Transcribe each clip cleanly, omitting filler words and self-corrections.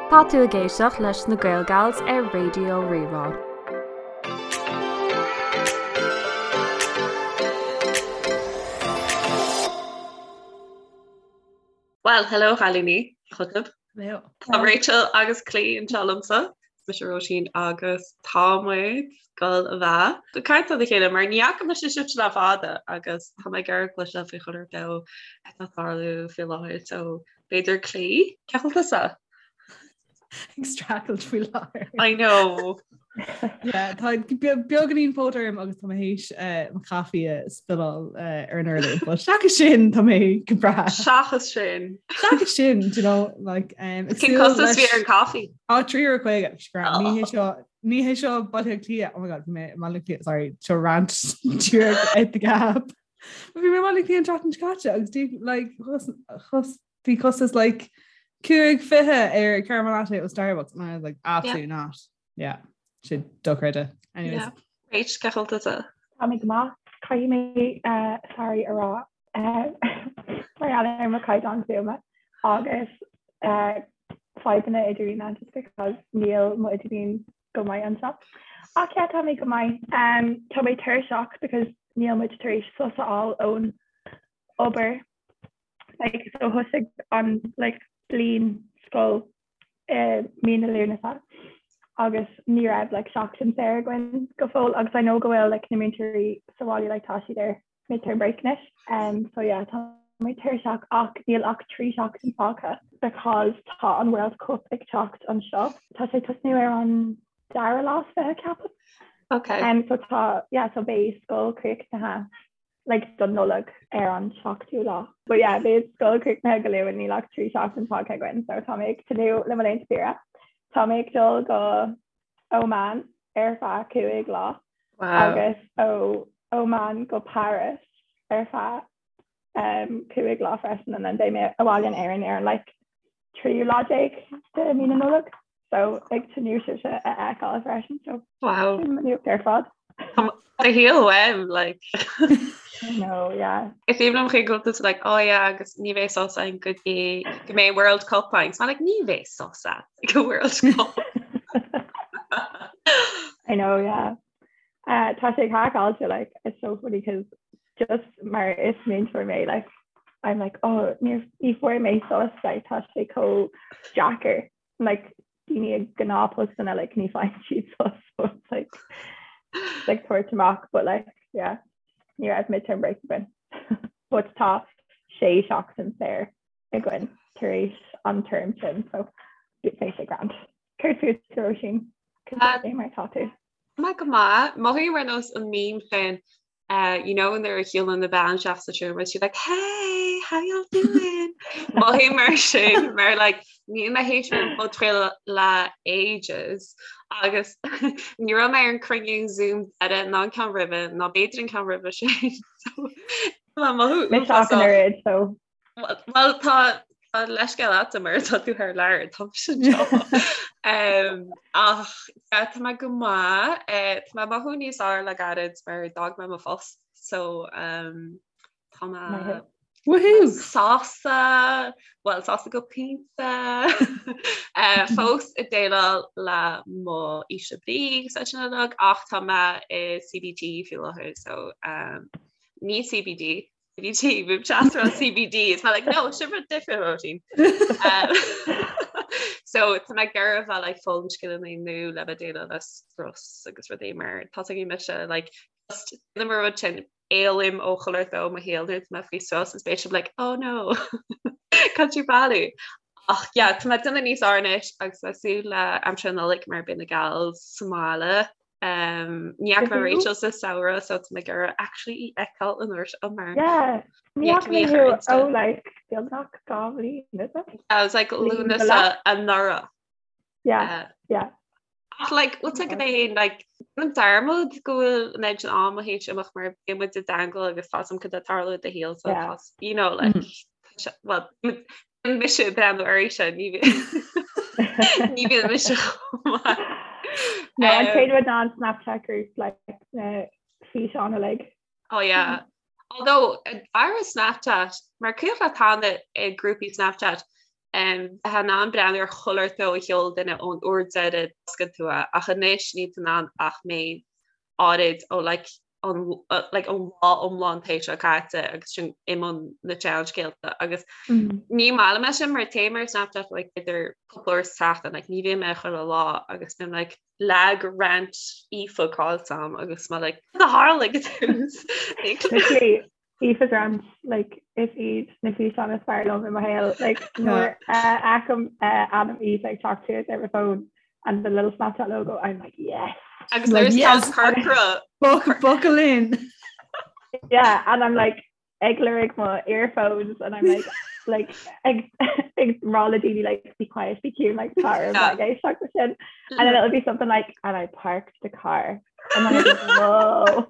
Tá tú ag éisteacht leis na Gaelgals ar Raidió Rí-Rá. Bhuel, hello a chailíní, chugaibh. Hello. Tá Rachel agus Clí anseo liomsa. Mise Róisín agus tá muid ag dul a bheith ag caint lena chéile mar ní fhaca mise sibhse le fada agus tá mé ag iarraidh cloisteáil faoi chuile rud atá ag tarlú faoi láthair so b'fhéidir Clí, cén chaoi a bhfuil tusa? Ag streachailt faoi láthair. I know. Yeah, tá beagáinín póit orm agus tá mé théis eh, mo chaife a spilleáil eh, ar an urlár, but seachas sin tá mé go breá. Seachas sin. Seachas sin, do you know, like, um, Cén costas a bhí ar an caife? Á €3.50 scram. Ní hé seo ní hé seo Baile Átha Cliath. Oh my god, bhí mé i mBaile Átha Cliath, sorry, seo rant díreach at the gap. Bhí mé i mBaile Átha Cliath an tseachtain seo caite agus dí, like, chos, chos, bhí costas like 5.20 ar caramel latte ó Starbucks and I was like, absolutely yeah. not. Yeah, sin dochreidte. Anyways. Yeah. Rach, cén chaoi a bhfuil tusa? Tá mé go maith. Caithfidh mé uh, sorry a rá uh, mar gheall ar mo chaighdeán fuaime agus uh, fadhbanna idirlíne just because níl mo idirlíon go maith anseo. Ach yeah, tá mé go maith. Um, tá mé tuirseach because níl muid tar éis sos a fháil ón obair. Like, so thosaigh an like, bliain scoil i mí na Lúnasa agus ní raibh like, seachtain saor againn go fóill agus I know go bhfuil like, na múinteoirí sa bhaile like, tá siad ar midterm break anois. Um, so yeah, tá mé tuirseach ach níl ach 3 seachtain fágtha because tá an World Cup ag teacht anseo. Tá sé tosnú ar an dara lá is 20 ceapaim. Okay. Um, so tá yeah, so beidh scoil críochnaithe like don Nollaig ar an 7ú lá. But yeah, beidh scoil críochnaithe go luath níl ach 3 seachtain fágtha againn, so tá mé ag tnúth le mo laethanta saoire. Tá mé ag dul go Oman ar feadh 5 lá wow. agus ó Oman go Paris ar feadh um, 5 lá freisin and then beidh mé abhaile in Éirinn ar an like tríú lá déag de mí na Nollag. So ag tnúth sibhse a fheiceáil freisin so Wow. sin mo nuacht ar fad. Do shaol uaim, like. I know, yeah. Is aoibhinn liom chuig go bhfuil tú like, oh yeah, agus ní bheidh sos againn go dtí go mbeidh World Cup againn. So I'm like, ní bheidh sos agat go World Cup. I know, yeah. Uh, tá sé craiceáilte, like, it's so funny because just mar is múinteoir mé, like, I'm like, oh, ní ní fuair mé sos, like, tá sé chomh deacair. Like, daoine i ngnáthphostanna, like, ní faigheann siad sos, so it's like, it's like tabhairt amach, but like, yeah, ní raibh midterm break againn. But tá sé seachtain saor againn tar éis an term sin, so beidh sé grand. Céard fút, Róisín? Cad é mar tá tú? Tá mé go maith. Mothaím ar nós an meme sin uh, you know nuair a shiúlann an bhean isteach sa seomra she's like hey how y'all doing Mothaím mar sin mar like níl mé théis an podchraoladh le ages agus ní raibh mé ar an cruinniú Zoom deiridh ná an ceann roimhe ná b'fhéidir an ceann roimhe sin so mothú Mise ach an oiread, so Well tá tá leithscéal agat mar tá tú thar lear tá mise anseo. Um, ach yeah, tá mé go maith eh, tá mé ag mothú níos fearr le gairid mar d'fhág mé mo phost so um, tá mé Maith. Woohoo! sásta well sásta go pointe eh, fós ag déileáil le mo ísle brí agus sin uilig ach tá mé i CBT faoi láthair so um, ní CBD CBT, bhí chat ar CBD, it's like no, sin rud difriúil Róisín. Um, so tá mé ag iarraidh bheith like foghlaim scileanna nua le bheith déileáil le strus agus rudaí mar tá ag mise like just déanaim an rud sin éalaím ó chuile shórt i mo shaol nuair atá mé faoi strus is beidh sibh like oh no can't you bailiú ach yeah tá mé ag déanamh níos fearr anois agus ag súil le aimsir na Nollag mar beidh na gals sa mbaile Um, ní fhaca mé Rachel sa samhradh so tá mé ag iarraidh actually í fheiceáil an uair seo mar Yeah, ní fhaca mé thú ó like beagnach 2 bhliain, is it? I was like Lúnasa anuraidh. Yeah, uh, yeah. Ach like what's like é like an dearmad go bhfuil an méid sin ama théis imeacht mar bíonn muid i dteagmháil agus tá a fhios agam cad atá ag tarlú i do shaol so Yeah. tá you know like Mm. tá sé- well bíonn mise ag breathnú uirthi ní ní bhíonn mise chomh maith. No, an Um, chéad rud ná an Snapchat group like na físeáin uilig. Oh yeah. Although aire Snapchat mar cuimhin le tána i grúpaí Snapchat. Bheifeá in ann breathnú ar chuile shórt a sheol duine ón uair deiridh d'oscail tú é, ach anois níl tú in ann ach méid áirid ó like an like an lá iomlán tae seo caite agus sin i mbun na seanscéalta agus ní maith liom é sin mar téim ar Snapchat like idir cúpla uair sa tseachtain like ní bhím air chuile lá agus bím like leath de rant Aoife caillte agam agus mé like cad a tharla ag an tús? Literally Aoife's rant like is iad na físeáin is fearr liom i mo shaol like nuair a fheicim ainm Aoife ag teacht suas ar mo phone and the little Snapchat logo I'm like yes Agus nuair is Yes. tá corcra Buckle, buckle in. yeah and I'm like ag lorg mo earphones and I'm like like ag ag rá le daoine like be quiet be cute like tar Yeah. like éisteacht leis sin and then it'll be something like and I parked the car and then I'm like whoa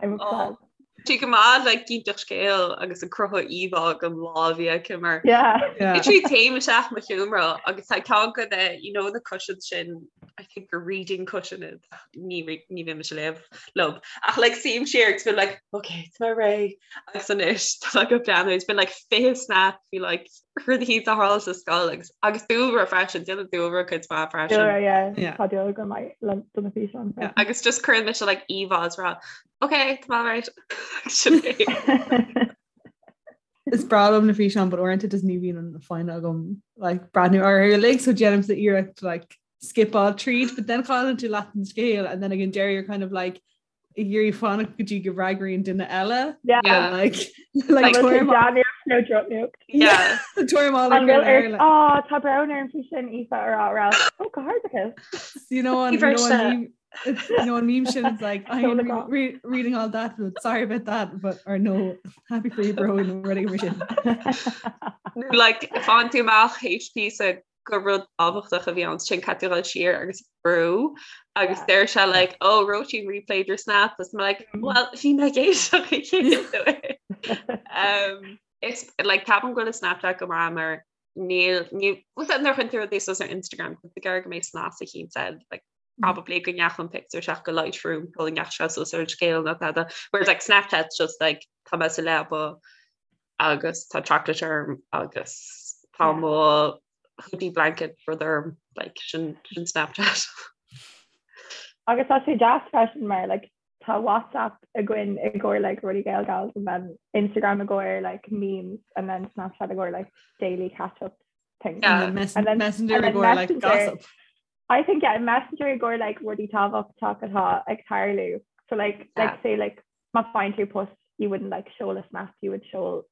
I'm obsessed. Tá go maith le cinnteacht scéil agus ag cruthú íomhá den lá a bhí aici mar Yeah. Yeah. Literally téim isteach mo sheomra agus tá ceann de na you know na cushions sin I think gur reading cushion iad ní re- ní bhím ag léamh leo ach like suím siar agus bím like okay tá mé réidh agus anois tá mé ag breathnú it's been like 20 snap bhí like rudaí a tharla sa scoil agus agus dúlra freisin déanann dúlra cuid mhaith freisin. Dúlra, yeah. Yeah. Tá dúlra go maith le do na físeáin Yeah. freisin. Agus just cuireann mise like íomhá is rá okay tá mé right Sin é. Is breá liom na físeáin but uaireanta just ní bhíonn an foighne agam like breathnú orthu uilig so déanaimse iarracht like skipáil tríd but then cailleann tú leath an scéil and then again deireadh you're kind of like ag iarraidh fanacht go dtí go bhfreagraíonn duine eile Yeah. Yeah. like like Like, tuairim no drop nuacht. Yeah. tuairim An bhfuil ar Á tá brón orm faoi sin Aoife a rá rá ó go hardachas. you know on, you know, on meme, it's, you know on meme shit it's like I am re re reading all that but sorry about that but or no happy for you bro and ready for sin. Like faigheann tú amach HP sa gur rud tábhachtach a bhí ann sin caithfidh tú dul siar agus brú agus deir sé like oh Róisín replayed your snap agus I'm like mm. well bhí mé ag éisteacht um, It's like ceapaim go bhfuil Snapchat go maith mar níl ní nuair a chuireann tú rudaí suas ar Instagram go go mbeidh snas eicínt air like probably go ndeachaigh an pictiúr isteach go Lightroom go ndeachaigh sé suas ar an scéal nó tada whereas like Snapchat's just like tá mé sa leaba agus tá chocolate orm agus tá mo hoodie blanket rud orm like sin sin Snapchat. Agus tá sé deas freisin mar like tá WhatsApp againn i gcomhair like rudaí Gaelgals and then Instagram i gcomhair like memes and then Snapchat i gcomhair like daily catch up things. Yeah. And then And then- Messenger and i then gcomhair like Messenger. gossip. I think yeah, Messenger i gcomhair like rudaí tábhachtach atá ag tarlú. So like Yeah. like say like má faigheann tú post you wouldn't like seoladh snap you would seol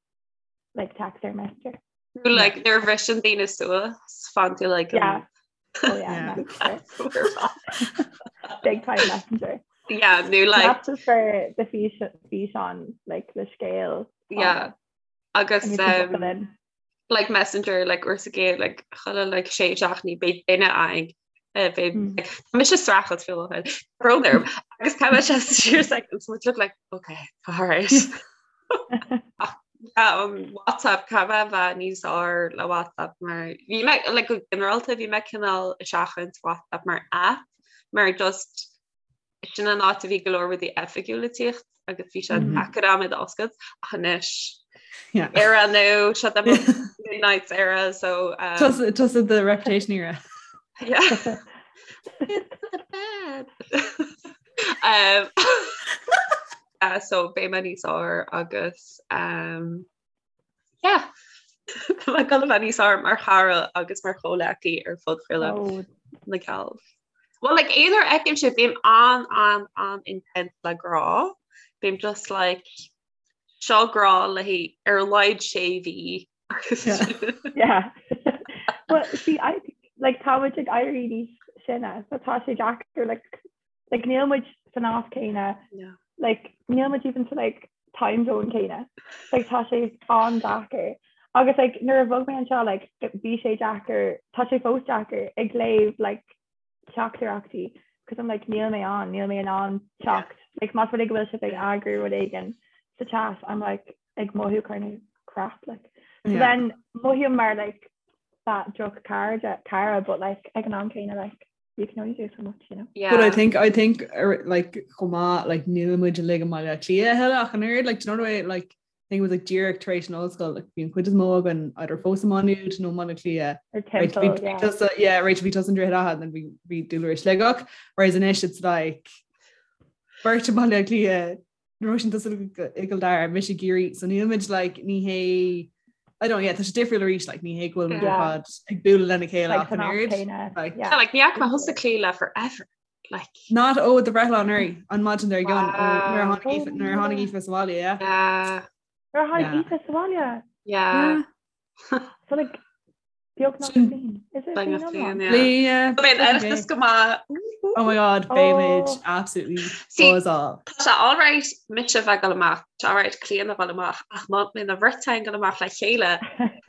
like text or Messenger. Nó like nuair a bhriseann daoine suas faigheann tú like Yeah. Oh yeah, Yeah. Messenger. Big time Messenger. Yeah, nó like That's just for the fís físeán like the scéal. yeah agus And you can um, buckle in. like messenger like uair sa gcéad like chuile like sé seachtainí beidh duine againn eh, beidh Mm. like, tá mise streachailt faoi láthair brón orm agus tá mise siar seconds muid look like okay all right Ach, yeah, um, WhatsApp caithfidh mé a bheith níos fearr le WhatsApp mar bhí mé like go ginearálta bhí mé cineál ag seachaint WhatsApp mar app mar just Sin an áit a bhí go leor rudaí oifigiúla ag tíocht agus bhí sé deacair agam iad a oscailt ach anois era nó seo the midnight era so um, Tusa the reputation era. Yeah. It's not bad. um, uh, so beidh mé níos fearr agus um, yeah. Tá mé ag dul a bheith níos fearr mar chara agus mar chomhleacaí ar phodchraoladh Oh, na Gals. Well, like, aon uair a fheicim sibh, bím an, an, an intense le grá. Bím just like, seo grá le haghaidh ar a laghad sé mhí. Yeah. Well, see, I like tá muid ag éirí níos sine, so tá sé deacair like like níl muid san áit céanna, No. like níl muid even sa like time zone céanna. Like tá sé an-deacair. Agus like nuair a bhog mé anseo like bhí sé deacair, tá sé fós deacair ag léamh like teachtaireachtaí because I'm like níl mé ann, níl mé in ann teacht. Like más rud é go bhfuil sibh ag eagrú rud éigin sa chat, I'm like ag mothú kind of crap like. So Yeah. then mothaím mar like that droch cara cara but like ag an am céanna like you can only do so much, you know. Yeah. But I think I think er, like chomh maith like níl muid uilig i mBaile Átha Cliath a thuilleadh ach an oiread like do you know the way like I think it was like díreach tar éis an ollscoil, like bhí an chuid is mó againn either fós i Má Nuad nó Baile Átha Cliath. Or timpeall, yeah. Tusa, yeah, Rachel bhí tusa i nDroichead Átha and then bhí bhí Dúlra i Sligeach, whereas anois it's like beirt i Baile Átha Cliath, Róisín tusa i gCill Dara, mise i gCiarraí, so nílimid like ní hé I don't yeah, tá sé difriúil arís like ní hé go bhfuil muid ar Yeah. fad ag bualadh lena chéile Like ach an san am oiread. céanna, Like, yeah. Yeah, like ní fhaca mé thusa Clíodhna le forever. Like Not ó do bhreithlá anuraidh an maidin dár gcionn ó nuair a tháinig Aoife- nuair a tháinig Oh. Aoife sa bhaile, yeah. yeah, Nuair a tháinig Yeah. Aoife sa bhaile. yeah. So like beagnach Sin- bliain. Is it Beagnach bliain bliain, iomlán? yeah. Bliain, Beidh an Oireachtas go maith. Oh my god, beimid Oh. absolutely See, buzzing. Tá sé alright mise bheith ag dul amach, tá sé alright Clíodhna a bheith amach, ach má bhíonn an bheirt againn ag dul amach le chéile,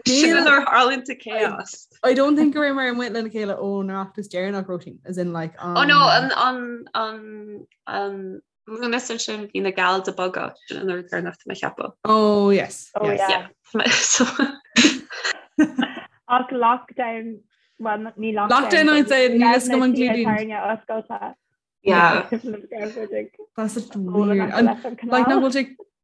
sin nuair a tharlaíonn an chaos. I don't think go raibh muid amuigh lena chéile ón Oireachtas deireanach Róisín, as in like Oh no, an an an an Lúnasa sin bhí na gals ag bogadh sin an uair deireanach tá mé ag ceapadh. Oh yes. Oh, yes. yeah. Yeah. So Ach lockdown, well, ní lockdown. Lockdown, I'd say, níl a fhios agam an gclúdaíonn. Táirne oscailte. yeah. That's such weird. And like nach bhfuil sé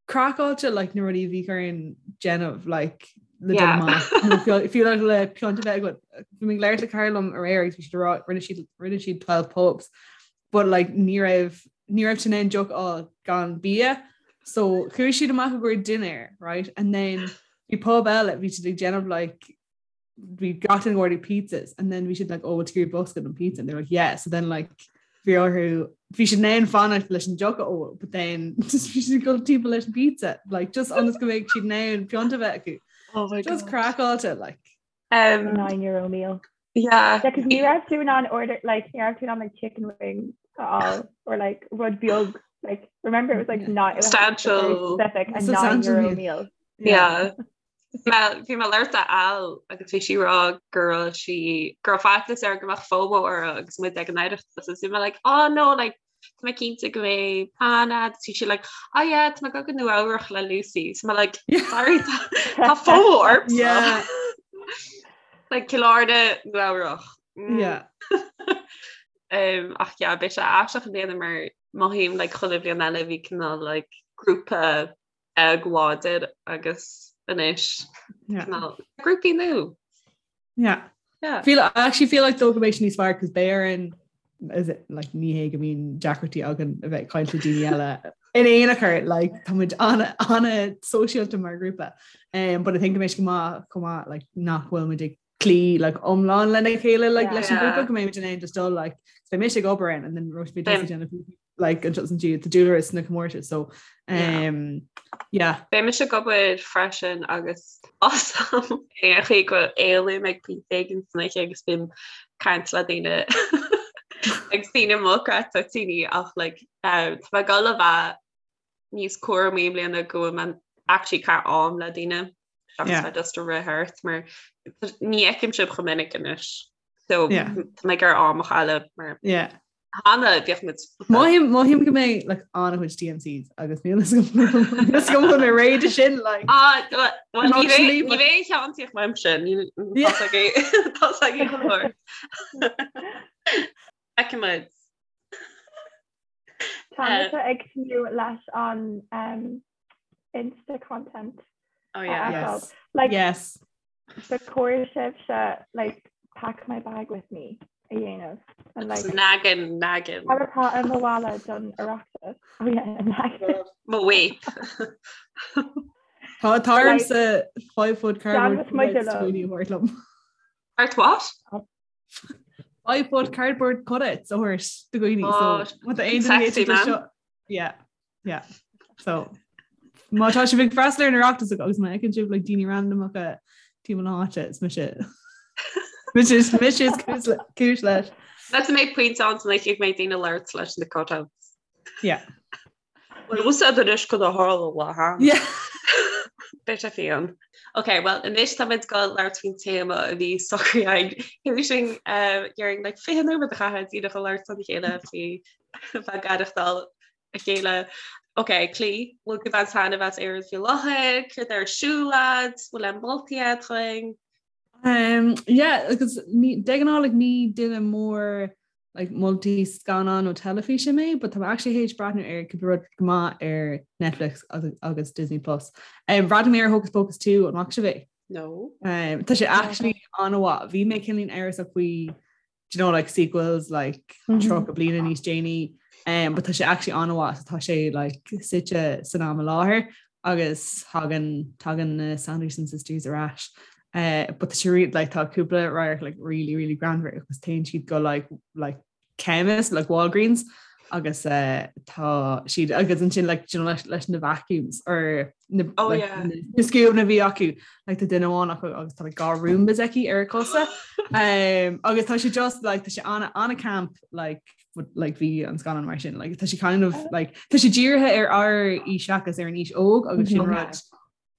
craiceáilte like na rudaí a bhí orainn déanamh like le dul Yeah. amach. Nó fiú fiú like le piont a bheith agat. Bhí mé ag labhairt le cara liom aréir agus bhí siad ag rá rinne siad rinne siad 12 pubs but like ní raibh ní raibh siad in ann deoch a fháil gan bia. So chuaigh siad amach i gcomhair dinnéir, right? And then bhí pub eile bhí siad ag déanamh like bhí gach duine ag ordú pizzas and then bhí siad like oh bhfuil tú ag iarraidh bosca don pizza and they're like yeah so then like bhí orthu bhí siad in ann fanacht leis an deoch a ól but then just bhí siad ag dul timpeall leis an pizza like just ionas go mbeadh siad in ann piont a bheith acu Oh my just God. craiceáilte like Um, €9 meal. yeah. Yeah, 'cause ní raibh tú in ann order like ní raibh tú in ann like chicken wings a fháil or like rud beag like remember it was like Yeah. not it was very Substantial. specific a Substantial €9 meal. meal. Yeah. Bhí mé ag labhairt le Al agus bhí sí ag rá go raibh sí go raibh faitíos uirthi go mbeadh FOMO uirthi agus muid ag an Oireachtas agus bhí mé like oh no like tá mé cinnte go mbeidh plean agat bhí sí like oh yeah tá mé ag dul go Nua Eabhrach le Lucy so mé like sorry tá tá FOMO ormsa Yeah. like Cill Airne Nua Eabhrach Mm. Yeah. Um, ach yeah beidh sé aisteach i mbliana mar mothaím like chuile bhliain eile bhí cineál like grúpa beag láidir agus anois Yeah. cineál grúpaí nua. Yeah. Yeah. Feel I actually feel like though go mbeidh sé níos fearr cos beidh orainn is it like ní hé go mbíonn deacrachtaí againn a bheith ag caint le daoine eile in aon chor like tá muid ana ana sóisialta mar grúpa um, but I think go mbeidh sé go maith chomh maith like nach bhfuil muid ag cloí like iomlán lena chéile like leis an Yeah. grúpa go mbeidh muid in ann just dul like beidh mise ag obair ann and then Róisín beidh Beidh- tusa ag déanamh like anseo is ansiúd tá Dúlra sna comórtais so Yeah. um, yeah Beidh mise ag obair freisin agus awesome ar an chaoi go éalaím ag pointe éigin san oíche agus bím ag caint le daoine agus daoine mochreidte tine ach like um, tá mé ag dul a bheith níos cúramaí i mbliana go bhfuil mé actually ag caitheamh am le daoine seachas Yeah. bheith just ag rith thart mar ní fheicim sibh chomh minic anois so Yeah. tá mé ag iarraidh am a chailleadh mar yeah cheana bhíodh muid Mothaím mothaím go mbeidh like an-chuid TMCs agus níl a fhios agam an bhfuil mé réidh sin like Ah, well, ní Emotionally, bheidh- ní but- bheidh ceann uaimse ní Yeah. tá ag go leor. Feicfimid. Tá mise ag tnúth leis an um, Insta content. Oh yeah. yes Like yes ba chóir sibhse like pack my bag with me a dhéanamh and like Nagging, nagging. Cad atá i mo mhála don Oireachtas? Oh yeah, nagging. Mo vape. Tá tá ormsa 5 foot cardboard Déanfaidh muid cutouts liom. daoine a thabhairt liom. Art what? 5 foot cardboard cutouts a thabhairt do dhaoine Oh, so má tá aon duine sexy, éisteacht man. seo yeah yeah so má tá sibh ag freastal ar an Oireachtas agus má fheiceann sibh like daoine randamacha timpeall na háite is mise mise mise is cúis le- cúis leis. Let's make pointe ann san oíche go mbeidh daoine ag labhairt leis na cutouts. Yeah. Well, úsáid anois chun a tharla le han. Yeah. Beidh sé fiáin. Ok, well anois táimid ag dul labhairt faoin téama a bhí socraithe againn. Théis sin dhéarfainn like 20 nóiméad a chaitheamh díreach ag labhairt lena chéile faoi bheith ag aireachtáil a chéile. Ok, Clí, bhfuil tú ag baint taitneamh as Éirinn faoi láthair, céard atá ar siúl agat, bhfuil aon moltaí agat dúinn? Um, yeah, agus ní, de ghnáth like, ní duine mór. like moltaí scannán nó teilifíse mé, but tá mé actually théis breathnú ar cúpla rud go maith ar Netflix agus Disney Plus. Um, bhreathnaigh mé ar Hocus Pocus 2 an bhfaca sibh é? No. Um, tá sé actually an-mhaith. Bhí mé cineáilín amhrasach faoi do you know, like sequels like mm -hmm. 30 bliana níos déanaí um, but tá sé actually an-mhaith so tá sé like suite san am i láthair agus thagann tagann na Sanderson sisters ar ais. Uh, but tá sé like tá cúpla radharc like really really greannmhar agus téann siad go like like chemist like Walgreens agus uh, tá siad agus ansin like you know, leis, leis na vacuums or na, oh, like, yeah. na, na scuab a bhí acu like tá duine amháin acu agus tá like, dhá Roombas aici ar a cosa um, agus tá sé just like tá sé an- an-camp like but, like bhí an scannán mar sin like tá sé kind of like tá sé dírithe ar ár aois seachas ar an aois óg agus sin Mhm. rud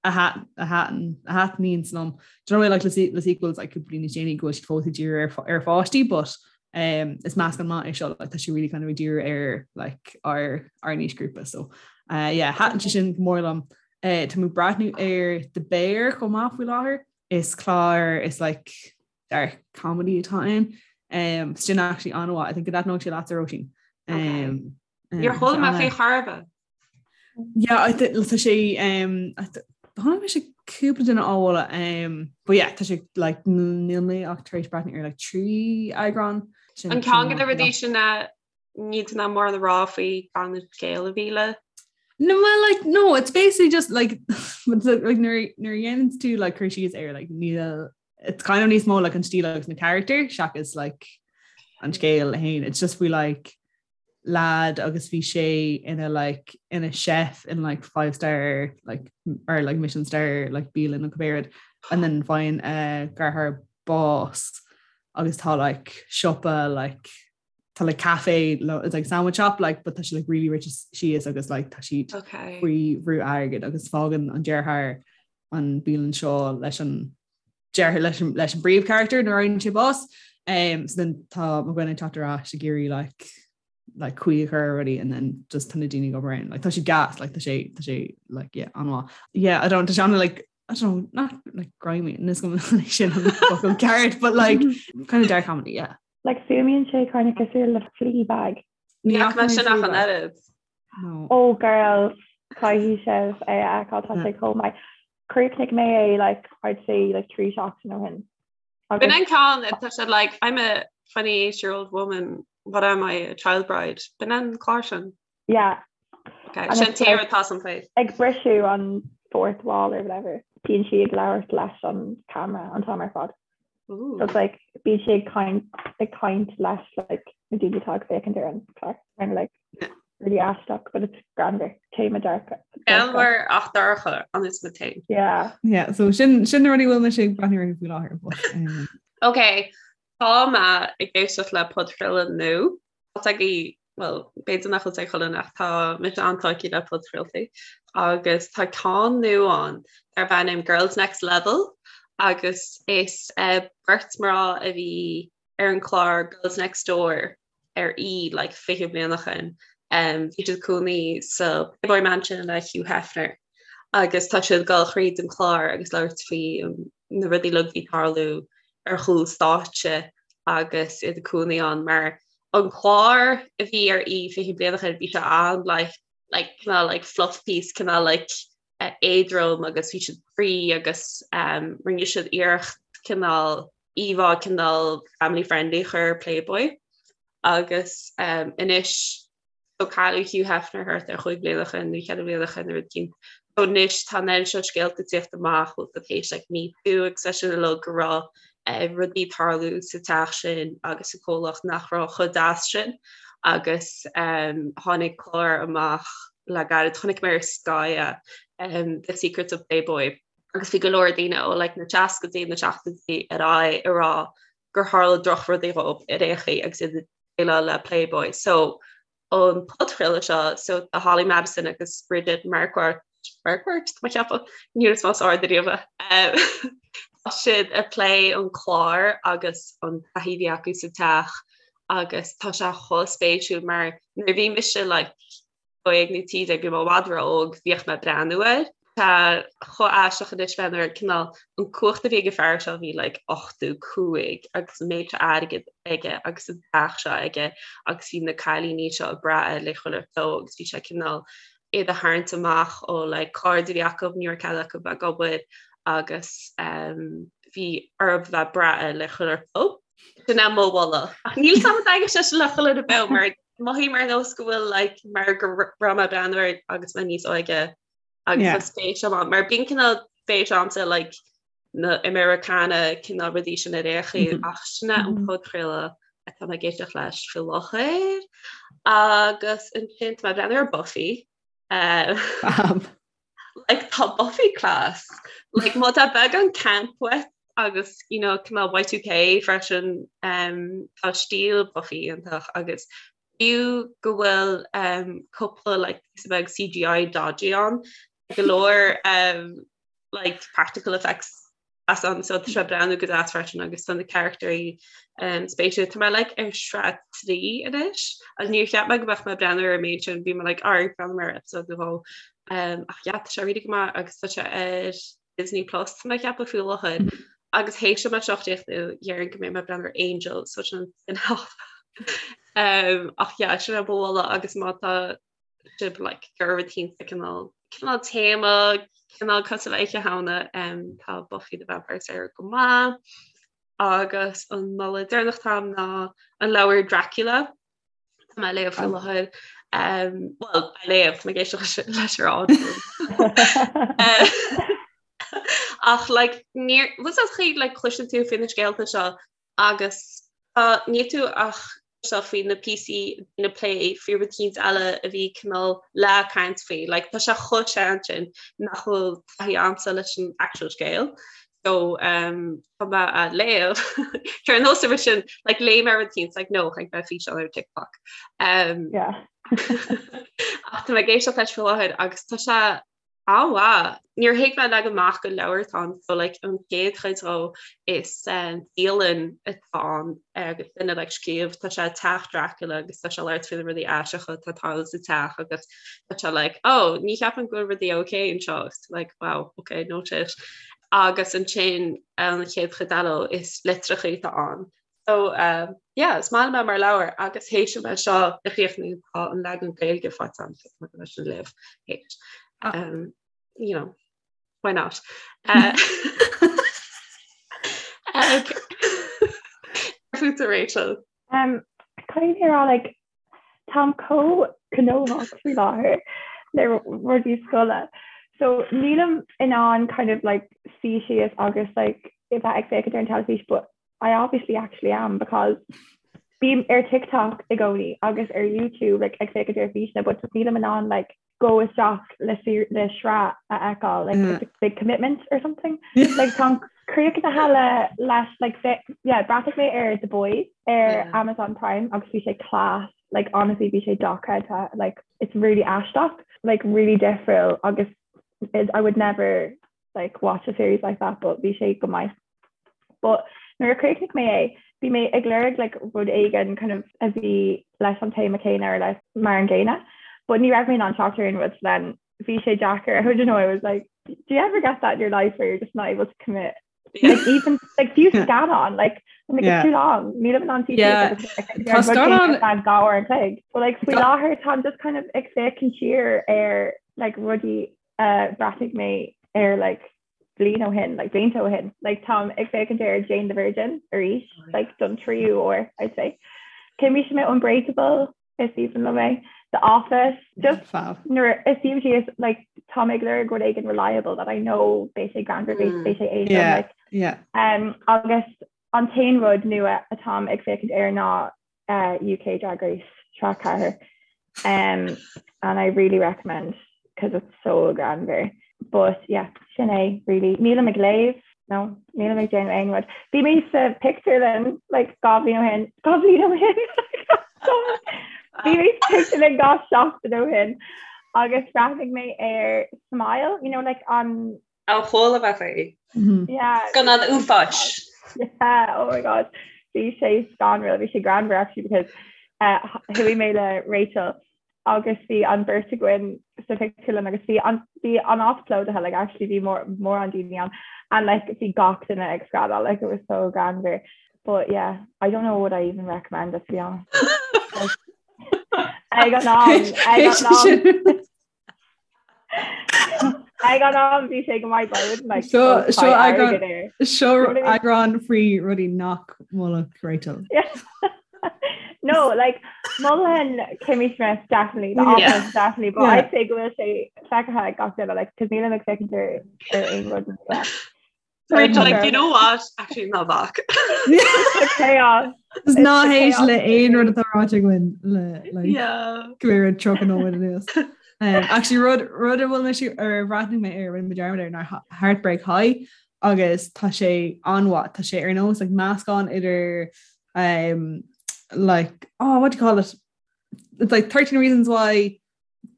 a thaitníonns liom. Do you know like le le sequels like cúpla bliain níos déanaí go bhfuil siad fós ag díriú ar ar pháistí but um, is meascán maith é seo like, tá sé really kind of ag díriú ar like ár ár n-aoisghrúpa so uh, yeah, thaitin sé sin go mór liom. Uh, tá mé ag breathnú ar The Bear chomh maith faoi láthair. Is clár is like dark comedy atá ann. Um, sin actually an-mhaith. I think go dtaitneodh sé leatsa Róisín. Um, Níor chuala mé faoi chor ar bith. Yeah, I think tá sé um, chonaic mise cúpla duine á mholadh um, but yeah, tá sé like níl mé ach tar éis breathnú ar like 3 eagrán. Sin An ceann de na rudaí sin na níl tú in ann mórán a rá faoi gan an scéal a mhilleadh. No, well, like, no, it's basically just like, like nuair nuair a dhéanann tú like cur síos air like níl it's kind of níos mó like an stíl agus na character seachas like an scéal féin. It's just faoi like lad agus bhí sé ina like ina chef in like five star like or like Michelin star like bialann nó cibé rud and then faigheann a dheartháir bás agus tá like siopa like tá like cafe it's like sandwich shop like but tá sé like really rite síos agus like tá siad okay. faoi bhrú airgid agus fágann an deartháir an bialann seo leis an deartháir leis an leis an bpríomhcharachtar nuair a fhaigheann sé bás. Um, so then tá mo dhuine ag teacht ar ais ag iarraidh like like caoi a chur ar rudaí and then just tá na daoine ag obair ann. Like tá sé gas, like tá sé tá sé like yeah an-mhaith. Yeah, I don't tá sé an like I don't know, not like grimy níl a fhios agam sin an focal ceart, but like kind of dark comedy, yeah. Like fuaimíonn sé kind of cosúil le Fleabag. Ní fhaca mé sin ach an oiread. No. Oh girls, caithfidh sibh é a fheiceáil tá sé chomh maith. Chríochnaigh mé é like I'd say like 3 seachtain ó shin. B'in an ceann tá sé like I'm a 28 year old woman, what am I, a child bride? B'in an clár sin. Yeah. Okay, sin tír atá san phlé. Ag briseadh an fourth wall or whatever. Bíonn sí ag labhairt leis an camera an t-am ar fad. Ooh. So it's like bíonn sí ag caint ag caint leis like na daoine atá ag féachaint ar an chlár. Kind of like really aisteach, but it's greannmhar. Téama dark. Greannmhar ach dorcha an is me féin. Yeah. Yeah, so sin sin na rudaí a bhfuil mise ag breathnú orthu faoi láthair. But, um, Ok, tá mé ag éisteacht le podchraoladh nua. Tá agaibh, bhuel, b'fhéidir nach bhfuil ag chuile dhuine ach tá mise an-tógtha le podchraoltaí agus tá ceann nua ann darb ainm Girls Next Level agus is beirt mná a bhí ar an chlár Girls Next Door ar E like 20 bliain ó shin. Bhí siad ag cónaí sa Playboy Mansion le Hugh Hefner agus tá siad ag dul thríd an chlár agus labhairt faoi na rudaí uilig a bhí ag tarlú ar chúl stáitse agus iad ag cónaí ann mar an clár a bhí ar E 20 bliain ó shin bhí sé an like like cineál like fluff piece cineál like éadrom agus bhí siad free agus um, rinne siad iarracht cineál íomhá cineál family friendly a chur ar Playboy agus um, anois So cailleadh Hugh Hefner thart ar chúig bliana ó shin nó cheithre bliana ó shin nó rud éicint. So anois tá an oiread seo scéalta ag tíocht amach bhfuil tar éis like Me Too agus é sin uilig go raibh eh, rudaí ag tarlú sa teach sin agus sa chomhlacht nach raibh chomh deas sin agus um, tháinig clár amach le gairid chonaic mé ar Sky é, um, The Secrets of Playboy agus bhí go leor daoine ó like, na seascaidí na seachtóidí ar aghaidh ag rá gur tharla drochrudaí dhóibh ar aon chaoi agus iad déileáil le Playboy. So an podchraoladh seo, so tá Holly Madison agus Bridget Marquardt, Marquardt, tá mé ag ceapadh, ní raibh mé ard ariamh. Tá siad ag plé an clár agus an taithí a bhí acu sa teach agus tá sé chomh spéisiúil mar nuair a bhí mise like 12 nó 13 bhí mé i bhfad ró-óg, bhíodh mé ag breathnú air. Tá chomh aisteach anois bheith nuair cineál an cumhacht a bhí ag an fear seo bhí like 85 agus an méid seo airgead aige agus an teach seo aige agus bhí na cailíní seo ag brath air le chuile shórt agus bhí sé cineál iad a tharraingt amach ó like cairde a bhí acu ní raibh cead acu bheith ag obair agus um, bhí orthu bheith ag brath air le chuile shórt. Sin é mo mholadh. Ach níl 's agam an dtaitneoidh sé sin le chuile dhuine beo mar mothaím ar nós go bhfuil like mar go raibh mé ag breathnú air agus mé níos óige agus yeah. spéis agam mar bíonn cineál spéis agamsa like na Americana cineál rudaí sin ar aon chaoi mm -hmm. ach sin é an mm -hmm. podchraoladh atá mé ag éisteacht leis faoi láthair agus ansin tá mé ag breathnú ar Buffy uh, like tá Buffy class like má tá beagán camp uait agus you know cineál Y2K freisin um, tá stíl Buffy iontach agus Fiú go bhfuil cúpla like píosa beag CGI dodgy ann, go leor like practical effects as ann so tá sé ag breathnú go deas freisin agus tá na carachtarí spéisiúil. Tá mé like ar sraith 3 anois agus níor cheap mé go mbeadh mé ag breathnú ar an méid sin, bhí mé like alright breathnóidh mé ar episode nó dhó. Ach yeah tá sé really go maith agus tá sé ar Disney Plus tá mé ag ceapadh faoi láthair agus théis dom é seo a chríochnú déarfainn go mbeidh mé ag breathnú ar Angel so sin an spin-off. um, ach yeah, sin é mo mholadh agus má tá sibh like, ag iarraidh rud eicínt cineál cineál téama cineál cosúil le Oíche Shamhna um, tá Buffy the Vampire Slayer go maith agus an moladh deireanach atá agam ná an leabhar Dracula Tá mé ag léamh faoi láthair. Bhuel, ag léamh, tá mé ag éisteacht leis ar Audible. Ach like, níor, bhfuil a fhios agat like, cloiseann tú faoi na scéalta seo agus tá níl tú ach seo faoi na píosaí na plé faoi rud eicínt eile a bhí cineál le caint faoi. Like, tá sé chomh sean sin nach bhfuil taithí agamsa leis an actual scéal. So um, tá mé á léamh Ar nós a sin like, léigh mé rud eicínt like, no chonaic mé físeán ar TikTok. Um, yeah. ach tá mé ag éisteacht leis faoi láthair agus tá sé an-mhaith. Níor thuig mé leag amach gur leabhar atá ann so like, an chéad chuid dhó is um, dialann atá ann agus duine like, scríobh tá sé teach Dracula agus tá sé ag labhairt faoi na rudaí aisteacha atá ag tarlú sa teach agus tá sé like, oh, ní cheapaim go bhfuil rudaí okay anseo like, wow, okay, noted. Agus ansin an chéad chuid eile is litreacha atá ann. So uh, yeah, is maith liom é mar leabhar agus théis dom é seo a chríochnú tá an leagan Gaeilge faighte agam so tá leis an léamh théis. Ah. Um, you know, why not? Uh, okay. Fútsa Rachel. Um, Caithfidh mé a rá like, Táim chomh gnóthach faoi láthair le rudaí scoile. So nílim in ann kind of like suí síos agus like a bheith ag féachaint ar an teilifís but I obviously actually am because bím ar TikTok i gcónaí agus ar YouTube like ag féachaint ar físeanna but just nílim in ann like go isteach le le sraith a fheiceáil like it's a big commitment or something. Like táim críochnaithe le leis like yeah bhreathnaigh mé ar The Boys ar yeah. Amazon Prime agus bhí sé class like honestly bhí sé dochreidte like it's really aisteach like really difriúil agus it, I would never like watch a series like that but bhí sé go maith. But nuair a chríochnaigh mé é, bhí mé ag lorg like rud éigin kind of a bhí leis an téama céanna or leis mar an gcéanna, but ní raibh mé in ann teacht ar aon rud so then bhí sé deacair. I don't know, I was like, do you ever get that in your life where you're just not able to commit? Like even like fiú scannán like I'm like it's too long. Nílim in ann Yeah. Tá scannán- dhá uair an chloig. But like faoi láthair táim just kind of ag féachaint siar ar like rudaí a bhreathnaigh mé ar like bliain ó shin, like blianta ó shin, like táim ag féachaint ar Jane the Virgin arís, oh, like don tríú uair, I'd say. Chuimse mé Unbreakable is aoibhinn liom é. The Office, just nuair a shuím síos like táim ag lorg rud éigin reliable that I know beidh sé greannmhar, beidh beidh sé éadrom, Yeah, like yeah. um, agus an t-aon rud nua atáim ag féachaint air ná uh, UK Drag Race sraith 4 um, and I really recommend because it's so greannmhar. But yeah, sin é really. Nílim ag léamh no, nílim ag déanamh aon rud. Bhí mé sa pictiúrlann like dhá bhliain ó shin dhá bhliain ó shin Bhí mé sa pictiúrlann dhá seachtain ó shin agus bhreathnaigh mé ar Smile, you know, like an Ó chuala mé faoi. Yeah. Scannán uafáis. Yeah, oh my god. Bhí sé scanrúil, bhí sé greannmhar actually because uh, chuaigh mé le Rachel. Agus bhí an bheirt againn sa phictiúrlann agus bhí an bhí an áit plódaithe like actually bhí mór mórán daoine ann and like bhí gach duine ag screadaíl like it was so greannmhar but yeah I don't know what I even recommend it to be honest. Ag an am ag an am Ag an am bhí sé go maith but I wouldn't like Seo go seo tie eagrán airgead air. seo You know what I mean? eagrán faoi rudaí nach molfadh Rachel. Yeah. No, like Mholfainn Kimmy Schmidt definitely, The Yeah. Office definitely, but Yeah. I'd say go bhfuil sé feicthe ag gach duine like cos nílim ag féachaint ar ar aon rud nua. So Rachel, tá like, you know what? Actually, ná bac. It's the chaos. Is It's ná the héist chaos le aon rud for me. atá ráite againn le like Yeah. go raibh 30 nóiméad anuas. Actually rud rud a bhfuil mé ar bhreathnaigh mé ar rinne mé dearmad air ná Heartbreak High agus tá sé an-mhaith tá sé ar nós like meascán idir um, like oh what do you call it it's like 13 reasons why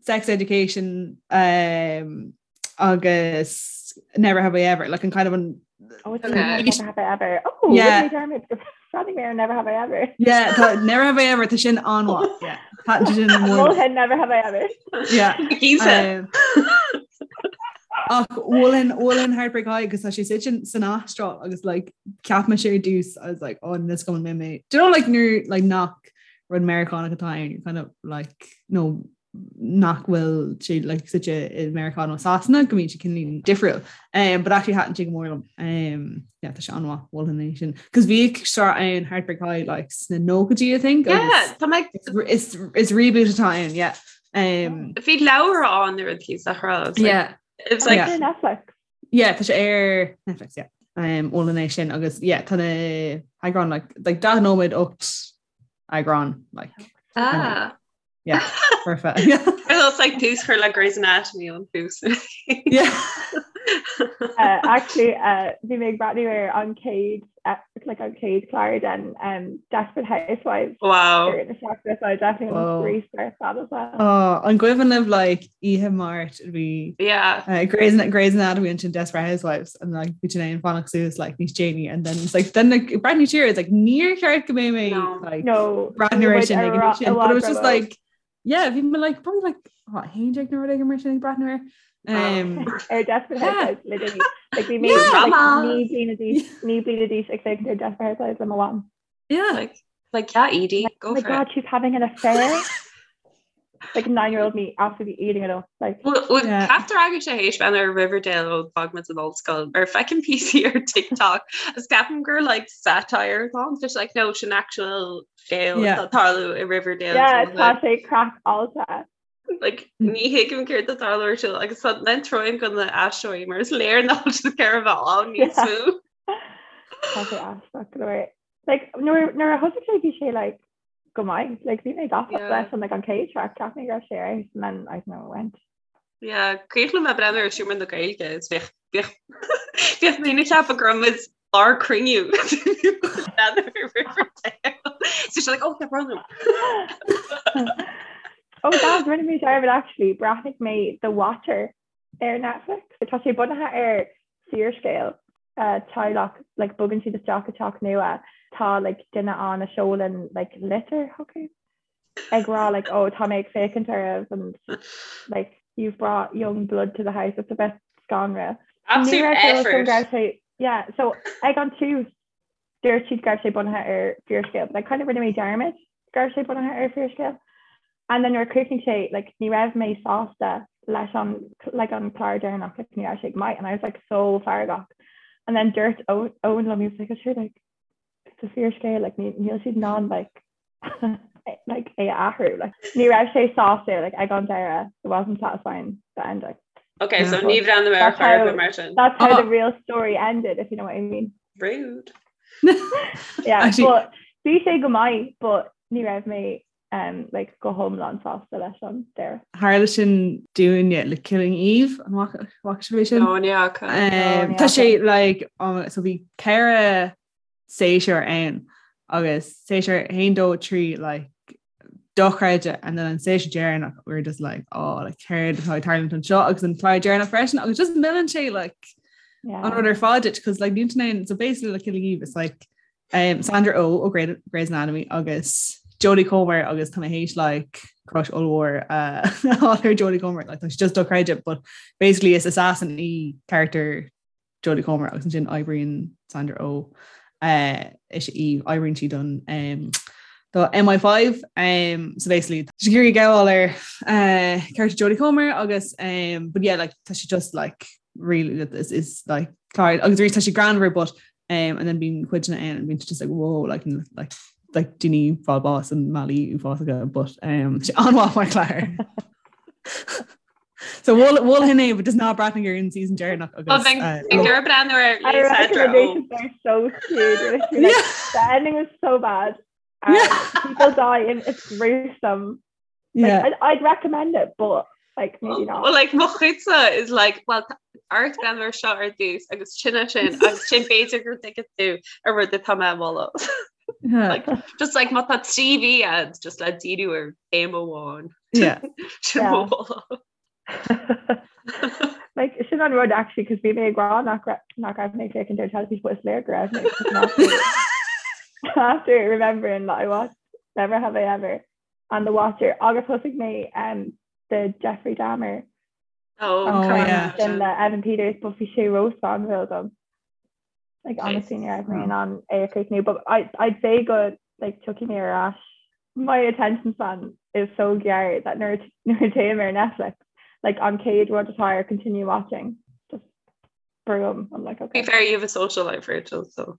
sex education um, agus never have I ever like an kind of an Oh, it's Okay. Never Have I Ever. Oh, Yeah. yeah. Dermot, Bhreathnaigh mé ar Never Have I Ever. yeah tá never have I ever tá sin an-mhaith yeah tá sin mór Mholfainn Never Have I Ever. yeah Gísa. Um, Ach mholfainn mholfainn Heartbreak High agus tá sé suite san Astráil agus like cheap mé sé ar dtús I was like oh this going mé mé Do you know like nuair like nach rud Meiriceánach atá ann you're kind of like no nach bhfuil sé like suite i Meiriceá nó Sasana go mbíonn sé cineál difriúil um, but actually thaitin sé go mór liom um, yeah, tá sé an-mhaith mholfainn é sin cos bhíodh sraith ann Heartbreak High like sna nóchaidí I think Yeah, agus tá mé is, is, is reboot atá ann yeah um, Bhí leabhar ann nó rud cíos a rá. It's like, yeah it's like, Yeah. Ar Netflix. Yeah, tá sé ar Netflix, yeah. Um, mholfainn é sin agus yeah, tá na heagráin like, like 40 nóiméad 8 eagrán like, ah. yeah, perfect. It's like tús chur le Grey's Anatomy an tús. yeah. Actually, uh, bhí mé ag breathnú ar an chéad uh, like an chéad chlár den um, Desperate Housewives Wow. ar na seachtaine, so I definitely Whoa. want to restart that as well. Oh, an cuimhin libh like oíche Máirt bhí Yeah. Grey's, Grey's Anatomy ansin Desperate Housewives and like bhí sin ag fanacht suas like níos déanaí and then it's like then like breathnú siar it's like níor cheart go mbeidh mé No. like No, breathnú ar sin ag an sin but it was just like like yeah bhí mé like probably like what haon déag nó rud éigin mar sin ag breathnú air um, ar Desperate Yeah. Housewives literally like bhí mé Yeah. like Drama. naoi bliana d'aois naoi bliana d'aois ag féachaint ar Desperate Housewives le mo mham. yeah Like, like yeah, Edie, Oh go my for god, it. she's having an affair. Like nine-year-old me absolutely eating it up. Like Well, Yeah. Ceaptar agaibh sé théis bheith ar Riverdale ó d'fhág muid an ollscoil ar feicim píosaí ar TikTok is ceapaim gur like satire atá ann, just like no sin actual scéal Yeah. atá ag tarlú i Riverdale yeah, so, tá sé craiceáilte. like ní thuigim céard atá ag tarlú ar siúl agus tá len troim go na aisteoirí mar is léir nach bhfuil siad ag iarraidh bheith ann níos Yeah. mó. Tá sé aisteach go leor. Like nuair nuair a thosaigh sé bhí sé like go maith. Like bhí mé gafa Yeah. leis an like an chéad sraith cheap mé go raibh sé ar fheabhas and then I don't know it went. Yeah, cuimhin liom breathnú ar Seomra na Gaeilge is bhíodh bhíodh bhíodh daoine ag ceapadh go raibh muid lár cruinniú breathnú ar Riverdale. So she's like, oh, yeah, brother. Oh that rinne mé dearmad actually bhreathnaigh mé The Watcher ar Netflix. Tá sé bunaithe ar fíorscéal uh, teaghlach like bogann siad isteach i teach nua tá like duine ann a sheolann like litir chucu ag rá like oh tá mé ag féachaint oraibh and like you've brought young blood to the house it's a bit scanrúil. Ní Absolute raibh sé effort. go raibh sé yeah so ag an tús dúirt siad go raibh sé bunaithe ar fíorscéal but like kind of rinne mé dearmad go raibh sé bunaithe ar fíorscéal. And then nuair a chríochnaigh sé like ní raibh mé sásta leis an like an clár deireanach like ní raibh sé go maith and I was like so feargach. And then dúirt Owen liom he was like sure like it's a fíorscéal like ní níl siad in ann like like é a athrú like ní raibh sé sásta like ag an deireadh it wasn't satisfying the ending. Okay, so Yeah. ní bhreathnóidh mé ar That's chor ar how bith mar sin. that's how Oh. the real story ended if you know what I mean. Rude. Yeah, Actually but bhí sé go maith but ní raibh mé um, like go hiomlán sásta leis an deireadh. Tharla sin dúinne le Killing Eve an bhfaca sibh é sin? No, ní fhaca. Um, ní tá fhaca. sé like um, so bhí ceithre séasúr ann agus séasúr haon dó trí like dochreidte and then an séasúr deireanach we were just like oh like céard atá ag tarlúint anseo agus an clár deireanach freisin agus just milleann sé like Yeah. an rud ar fad duit because like níl tú in ann so basically like Killing Eve it's like um, Sandra Oh ó Grey's Anatomy agus Jodie Comer agus tá mé théis like crush ollmhór uh, ar Jodie Comer like, tá just dochreidte but basically is assassin í character Jodie Comer agus ansin oibríonn Sandra Oh uh, is í oibríonn sí don um, do MI5 um, so basically tá sí ag iarraidh gabháil ar uh, character Jodie Comer agus um, but yeah like tá sí just like really is, is like clár agus arís tá sí greannmhar but um, and then bíonn cuideanna ann and bíonn just like whoa like like like daoine fáil bás i mbealaí uafásacha but um, sé an-mhaith mar chlár. So mholfainn é but just ná breathnaigh ar an season deireanach agus gur breathnú ar recommendations are so cute. Like, yeah. The ending was so bad. Um, yeah. People die and it's gruesome. Like, yeah. I'd, I'd recommend it, but like maybe not. Well, like mo chuidse is like well art breathnú air seo ar dtús agus sin sin agus sin b'fhéidir go dtuigfidh tú an rud atá mé a mholadh. Like, just like má tá 3 mhí agat just le díriú ar théama amháin. Yeah. Sin Yeah. mo mholadh. Like sin an rud actually cos bhí mé ag rá nach ra- nach raibh mé ag féachaint ar teilifís but is léir go raibh mé 'cause after- after remembering that I watched Never Have I Ever and The Watcher agus thosaigh mé um, the Jeffrey Dahmer Oh, Oh, yeah. sin le Evan Peters but bhí sé róscanrúil dom. Like honestly ní raibh mé in ann é a chríochnú but I, I'd say go like tiocfaidh mé ar ais. My attention span is so gearr that nuair nuair a théim ar Netflix like an chéad rud atá ar continue watching just boom I'm like Be okay. fair, you have a social life, Rachel, so.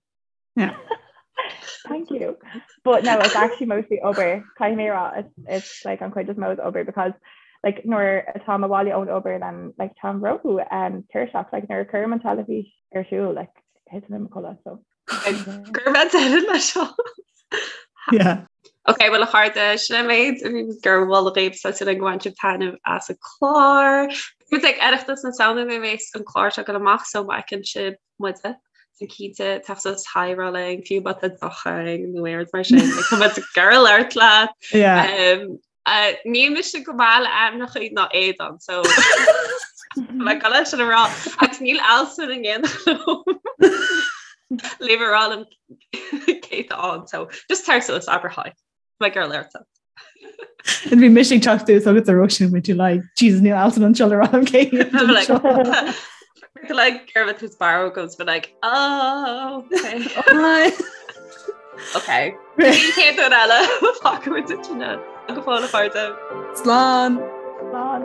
Yeah. Thank you. But no, it's actually mostly obair. Caithfidh mé a rá, it's, it's like an chuid is mó is obair because like nuair atá mé abhaile ón obair then like táim ró um, tuirseach like nuair a chuirim an teilifís ar siúl like thiteann mé i mo chodladh so. Gur bheith deireadh leis seo. Yeah. Ok, well a chairde, sin an méid a bhí gur mholadh dhaoibh tá súil agam gur bhain sibh taitneamh as an clár. Muid ag Oireachtas na Samhna nuair a bheas an clár seo ag dul amach so má fheiceann sibh muide so cinnte teacht suas hi a rá linn fiú má tá deoch againn nó aon rud mar sin like, tá muid ag iarraidh labhairt leat. Yeah. Um, uh, níl mise go maith le ainmneacha ná éadan so le go leis sin a rá agus níl Alison in éineacht liom le a rá liom cé atá ann so just tar suas abair hi. Tá mé ag iarraidh labhairt leat. And bhí mise ag teacht suas agus a Róisín with you like Jesus níl Alison anseo le rá liom cé I'm like, like Germid who's barrow goes but like oh okay Hi. okay Céad eile fágfaidh muid sin go fóill a chairde. Slán. Slán.